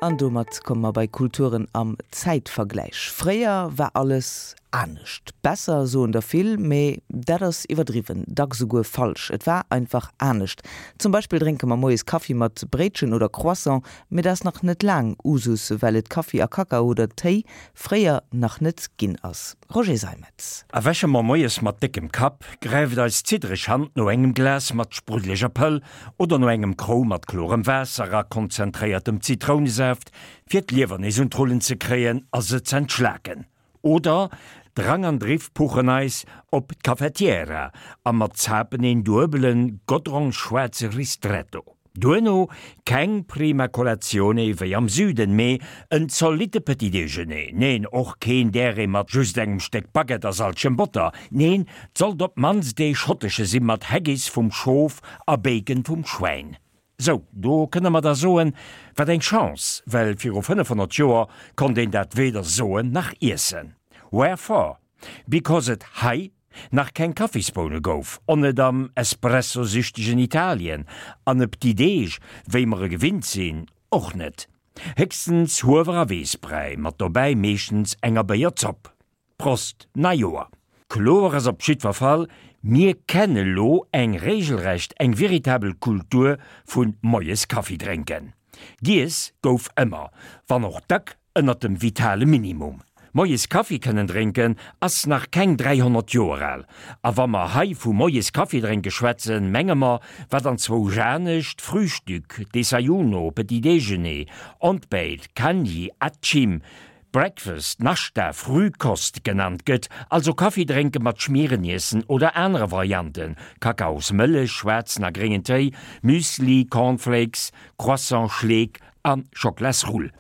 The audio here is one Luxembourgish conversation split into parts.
An domat komme mer bei Kulturen am Zäitvergläich. Fréier war alles anescht. Besser, soen der vill, mee dat ass iwwerdriwwen, dacks esouguer falsch. Et war einfach anescht. Zum Beispill drénke mer moies Kaffi mat Bréitchen oder Croissant, mee dat ass nach net laang Usus, well et Kaffi a Kakao oder Téi fréier nach net ginn ass. Roger Seimetz. Erwäche mer moies mat déckem Kapp, gräift eis ziddereg Hand no engem Glas mat spruddeleger Pëll oder no engem Krou mat klorem Waasser a konzentréiertem Zitrounesaaft, fir d'Liewer nees un d'Rullen ze kréien a se z'entschlaken. Oder Drang an Driff puchen eis op d'Cafetiera a mer zapen een duebelen godrongschwaarze Ristretto. Duerno keng prima colazione wéi am Süden, mee en zolitte Petit déjeuner. Neen, och keen däree mat just engem Stéck Baguette a salzegem Botter. Neen, 't sollt op d'mannst ee schottesche si mat Haggis vum Schof a Bacon vum Schwäin. Sou, do kënne mer da soen, wat eng Chance, well viru 500 Joer konnt een dat weder soen nach iessen. Wherefore? Because et hei nach keng Kaffisboune gouf, on net am espressosüchtegen Italien, an e Petit Déj, wéi mer e gewinnt sinn, och net. Héchstens Huewer a Weessbräi, mat dobäi meeschtens enger Béierzopp. Prost Neijoer! Kloer ass op jiddwer Fall, mir kenne lo eng regelrecht, eng veritabel Kultur vun moies Kaffi drénken. Giess gouf ëmmer, wann och dack ënnert dem vitale Minimum. Moies Kaffi kënnen drénken ass nach keng 300 Joer al. A wa mer hei vu moies Kaffi drénke schwätzen, menge mer, wat anzwousch anescht Frühstück, Desayuno, Petit déjeuner, Ontbijt, Kanji, Atchim, Breakfast, Nashta, Frühkost genannt gëtt, also Kaffi drénke mat Schmiereniessen oder anere Varianten, Kakaosmëllech, schwaarzen a gréngen Téi, Müsli, Cornflakes, Croissant, Schleek a Schoklasrull.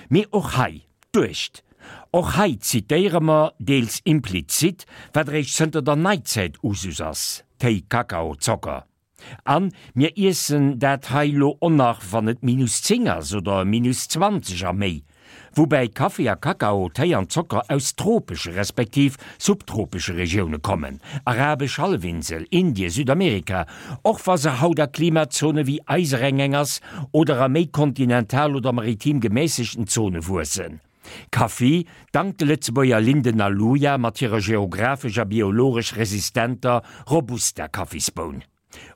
Mee och hei, duecht! Och hei zitéiere mer, deels implizit, wat eréischt zënter der Neizäit Usus ass, Téi, Kakao, Zocker. An mir iessen dat hei lo on nach wann et minus 10 ass oder minus 20 a méi. Woubäi Kaffi a Kakao, Téi an Zocker aus tropesche respektiv subtropesche Regioune kommen, Arabesch Hallefinsel, Indien, Südamerika, och wa se haut a Klimazone wéi eisereng eng ass oder a méi kontinental oder maritim gemässegten Zone wuessen. Kaffi, dank de Lëtzebuerger Linden a Luja mat hirer geographesch a biologesch resistenter Robusta-Kaffisboun.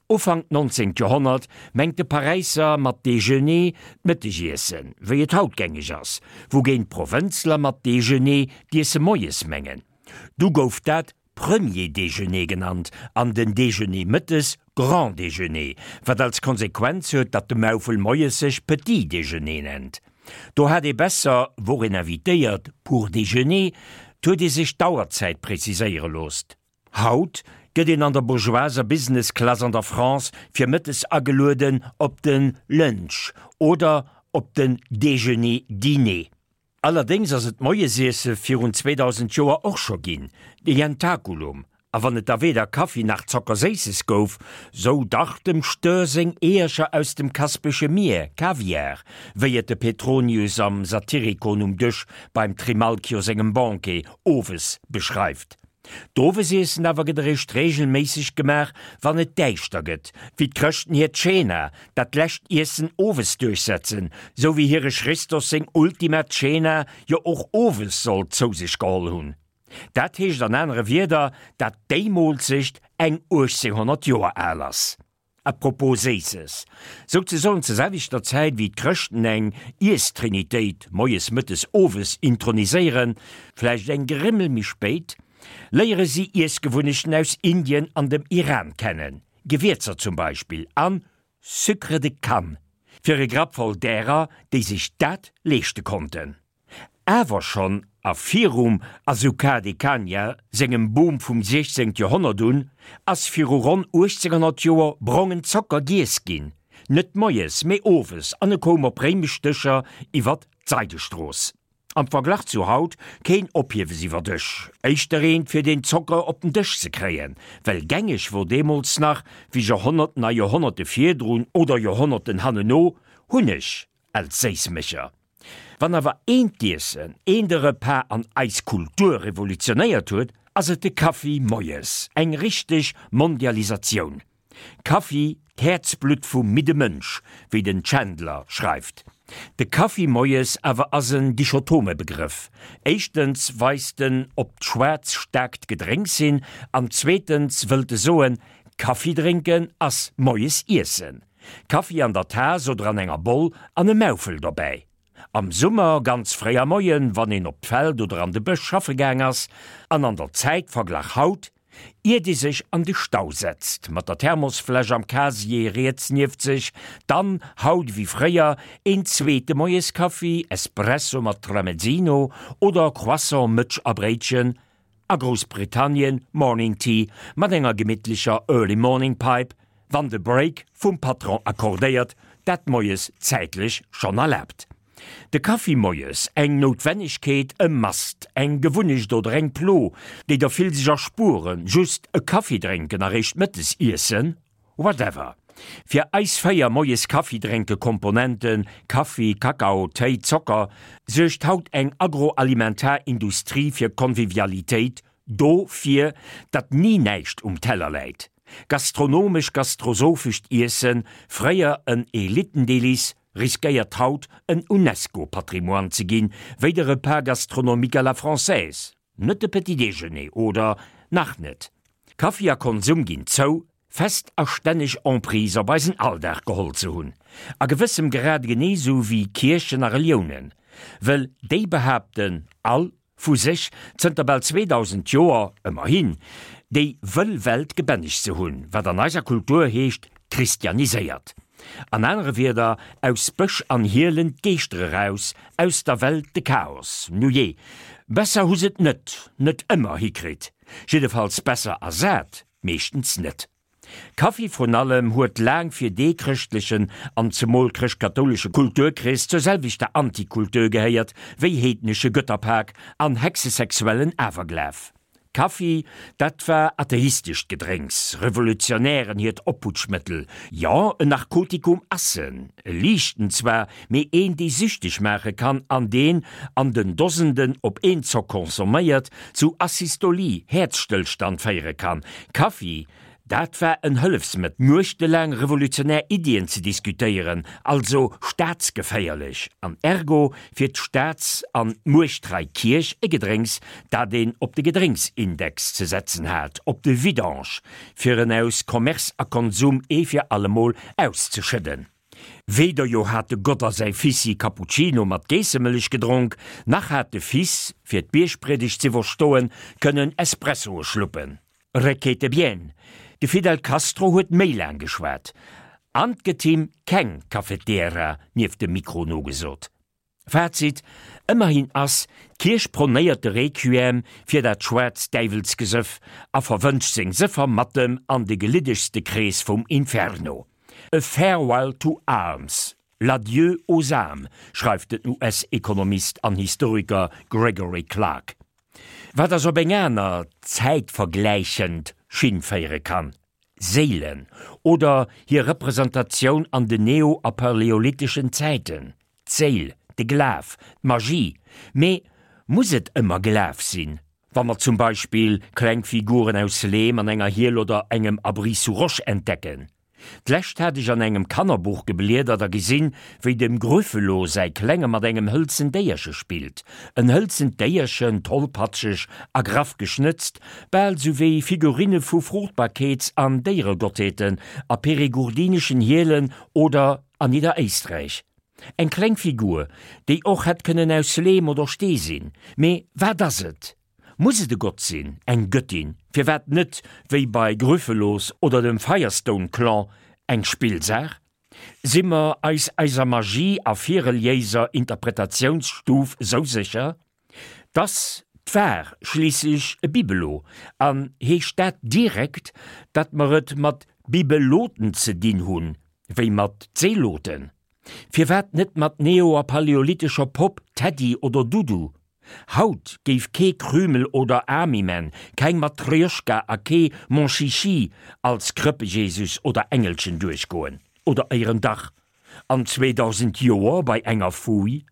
Ufank 19. Joerhonnert mengt de Paräisser mat Déjeuner d'Mëttegiessen, wéi et haut gängeg ass, wougéint d'Provënzler mat Déjeuner d'Iesse moies mengen. Du gouf dat Premier déjeuner genannt an den Déjeuner mëttes Grand déjeuner, wat als Konsequenz huet, datt de Maufel moies sech Petit déjeuner nennt. Do hat ee besser, wor een invitéiert pour déjeuner, 't huet ee sech d'Auerzäit preziséiere loosst. Haut gëtt een an der bourgeoiser Business Class an der France fir mëttes agelueden op den Lunch oder op den Déjeuner-Dîner. Allerdéngs ass et d'Moiesiesse virun 2000 Joer och scho ginn, de Jentaculum, a wann et da weder Kaffi nach Zockerséisses gouf, sou dach dem Stör seng Eeërcher aus dem Kaspesche Mier, Kaviar, wéi et de Petronius am Satyricon um Dësch beim Trimalchio sengem Banquet owes beschreift. D'Owesiessen awer gëtt eréischt reegelméisseg gemaach, wann et däischter gëtt, wéi d'Chrëschten hiert Cena, dat lescht Iessen owes duerchsetzen, sou wéi hire Christos seng Ultima Cena jo och owes soll zou sech geholl hunn. Dat heescht an anere Wierder, dat déi Moolzecht eng 1800 Joer al ass. A propos Séisses, souzesoen zur selwechter Zäit wéi d'Chrëschten eng Iesstrinitéit moies, mëttes, owes introniséieren, vläicht eng Grimmel méi spéit, léiere si Iessgewunnechten aus Indien an dem Iran kennen, Gewierzer zum Beispill an Sucre de canne, fir e Grapp voll därer, déi sech dat leeschte konnten. Awer schonn a virum Azucar de Caña sengem Boom vum 16. Joerhonnert un, ass viru ronn 1800 Joer brongen Zocker giess ginn, net moies, mee owes, an e koum op réimesch Dëscher iwwer d'Seidestrooss. Am Verglach zu haut keen Ophiewes iwwer Dësch, éischter eent fir den Zocker op den Dësch ze kréien, well gängeg wor deemools nach, wéi Joerhonnerten a Joerhonnerte virdrun oder Joerhonnerten hanneno, Hunneg als Séissmécher. Wann awer een d'Iessen, een de Repas an eis Kultur revolutionéiert huet, ass et de Kaffi moies. Eng richteg Mondialisatioun. Kaffi, d'Häerzblutt vum midde Mënsch, wéi den Chandler schreift. De Kaffi moies awer ass en dichotome Begrëff. Éischtens weist en op d'schwaarz staarkt Gedrénks hin an zweetens wëllt e soen, Kaffi drénken ass moies iessen. Kaffi an der Taass oder an enger Boll an e Maufel dobäi. Am Summer ganz fréi am Moien, wann een op d'Feld oder an de Bësch schaffe gaang ass, an an der Zäit, verglach haut, iert ee sech an de Stau setzt, mat der Thermosfläsch am Casier riets nieft sech, dann, haut ewéi fréier, een zweete Moieskaffi, Espresso mat Tramezzino oder Croissant, Mëtsch a Bréitchen, a Groussbritannien Morning Tea mat enger gemittlecher Early Morning Pipe, wann de Break vum Patron accordéiert dat moies zäitlech schonn erlaabt. De Kaffi moies, eng Noutwennegkeet, e Must, eng Gewunnecht oder eng Plo, déi der vill sech erspueren, just e Kaffi drénken a réischt mëttes iessen? Whatever. Fir eis 4 moies Kaffi drénke Komponenten, Kaffi, Kakao, Téi, Zocker, suergt haut eng agroalimentar Industrie fir Convivialitéit, dofir, datt ni näischt um Teller läit. Gastronomesch-gastrosophescht Iessen, fréier en Elitendelice, riskéiert haut en Unesco-Patrimoine ze ginn, wéi de Repas gastronomique à la française. Net de Petit Déjeuner, oder nach net. Kaffi a Konsum ginn zou, fest a stänneg Emprise op eisen Alldag geholl ze hunn. A gewëssem Grad genee sou wéi Kierchen a Reliounen, wëll déi behaapten all vu sech, zënter bal 2000 Joer, ëmmerhin, déi wëll Welt gebännegt ze hunn, wat an eiser Kultur heescht christianiséiert. An anere Wierder, aus Bësch an Hielen d'Geeschter eraus, aus der Welt de Chaos. Nujee, besser hu s'et net, net ëmmer hikritt, jiddefalls besser ersat meeschtens net. Kaffi vrun allem huet laang fir dee chrëschtlechen an zemol chrëscht-kathoulesche Kulturkrees zur selwechter Antikultur gehéiert wéi heednesche Götterpak an hexesexuellen Awerglaf. Kaffi, dat war atheistescht Gedrénks, Revolutionären hiert Opputschmëttel, jo, en Narkotikum ass en, e liichten zwar, mee een dee süchteg maache kann an deen, an den Dosenden op een Zock consomméiert, zu Asystolie, Häerzstëllstand, féiere kann. Kaffi, dat war en Hëllefsmëttel, nuechtelaang revolutionär Iddien ze diskutéieren, also staatsgeféierlech, an ergo fir d'Staats an d'muechttrei Kierch e Gedrénks, dat een op de Gedrénksindex ze setzen hat, op de Vidange, fir en aus Commerce a Konsum ee fir allemol auszeschëdden. Weder jo hat de Gott a säi Fissi Cappuccino mat Geessemëllech gedronk, nach hat de Fils, fir d'Biergpriedegt z'iwwerstoen, kënnen Espressoe schluppen. Requete bien, de Fidel Castro huet méi laang geschwat, an 't gëtt him keng Cafetiera nieft dem Mikro nogesot. Fazit, Ëmmerhin ass d'Kierch pronéiert de Requiem fir dat schwaarzt Däiwelsgesëff a verwënscht seng Sëffer mat dem an de geliddegste Krees vum Inferno. A farewell to arms, l'adieu aux âmes, schreift den US-Ekonomist an Historiker Gregory Clark. Wat ass op eng aner, zäitvergläichend Schinn féiere kann. Séilen oder hir Representatioun an den neo a paläolitheschen Zäiten, d'Séil, de Glaf, d'Magie. Mee muss et ëmmer Glaf sinn, wa mer zum Beispill kleng Figuren aus Leem an enger Hiel oder engem Abri sous roche entdecken? D'lescht hat ech an engem Kannerbuch gebliedert a gesinn, wéi dem Grüffelo säi Klenge mat engem hëlzen Déierche spillt. En hëlzent Déierchen, tollpatscheg a graff geschnëtzt, bal sou wéi Figurinne vu Fruchtbarkeets an Déieregottheeten a perigourdineschen Hielen oder an Nidderéisträich. Eng kleng Figur, déi och hätt kënnen aus Leem oder Stee sinn. Mee wat ass et? Muss et e Gott sinn, eng Göttin, firwat net, wéi bei Gryphelos oder dem Firestone Clan, eng Spillsaach? Si mer eis eiser Magie a virreliéiser Interpretatiounsstuf sou sécher? T'ass d'war schliisslech e Bibelot, an heescht dat direkt, datt mer et mat Bibeloten ze dinn hunn, wéi mat Zeloten? Firwat net mat neo a paläolithescher Popp, Teddy oder Dudu? Haut géif kee Krümel oder Army-Man, keng Matrjoschka a kee Mon Chichi als Krëppejesus oder Engelchen duerchgoen. Oder éieren dach an 2000 Joer bei enger Fouille?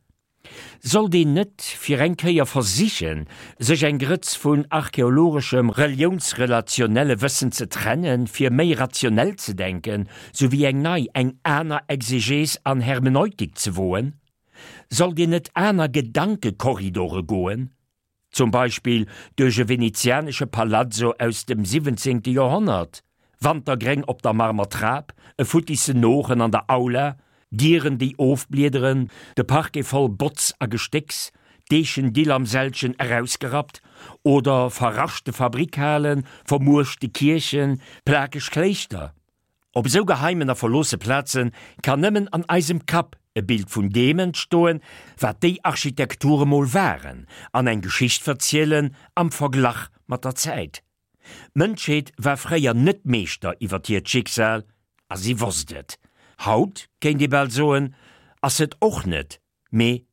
Sollt een net fir eng Kéier versichen, sech eng Grëtz vun archäologeschem reliounsrelationelle Wëssen ze trennen, fir méi rationell ze denken, souwéi eng nei, eng aner Exegees an Hermeneutik ze woen? Sollt een net aner Gedankekorridore goen? Zum Beispill duerch e venezianesche Palazzo aus dem siwwenzéngte Joerhonnert, Wantergréng op der Marmertrap, e futtissen Noochen an der Aula, Dieren déi ofbliederen, de Parquet voll Botz a Gestécks, d'Eechendill am Sällchen erausgerappt, oder verraschte Fabrikhalen, vermuerschte Kierchen, plakeg Kléischter. Op esou geheimen a verloosse Plaze kann nëmmen an eisem Kapp e Bild vun deem entstoen, wat déi Architekture mol waren, an eng Geschicht verzielen am Verglach mat der Zäit. D'Mënschheet war fréier net Meeschter iwwer hiert Schicksal a si wosst et. Haut, kéint ee bal soen, ass s'et och net, mee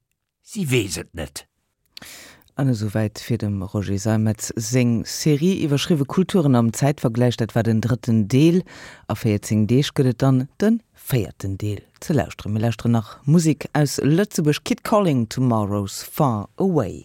si weess et net. An esouwäit fir dem Roger Seimetz seng Serie iwwerschriwwe Kulturen am Zäitvergläich. Dat war den drëtten Deel. A 14 Deeg gëtt et dann de véierten Deel ze lauschteren. Mir lauschteren nach Musek aus Lëtzebuerg, Kid Calling, Tomorrow's Far Away.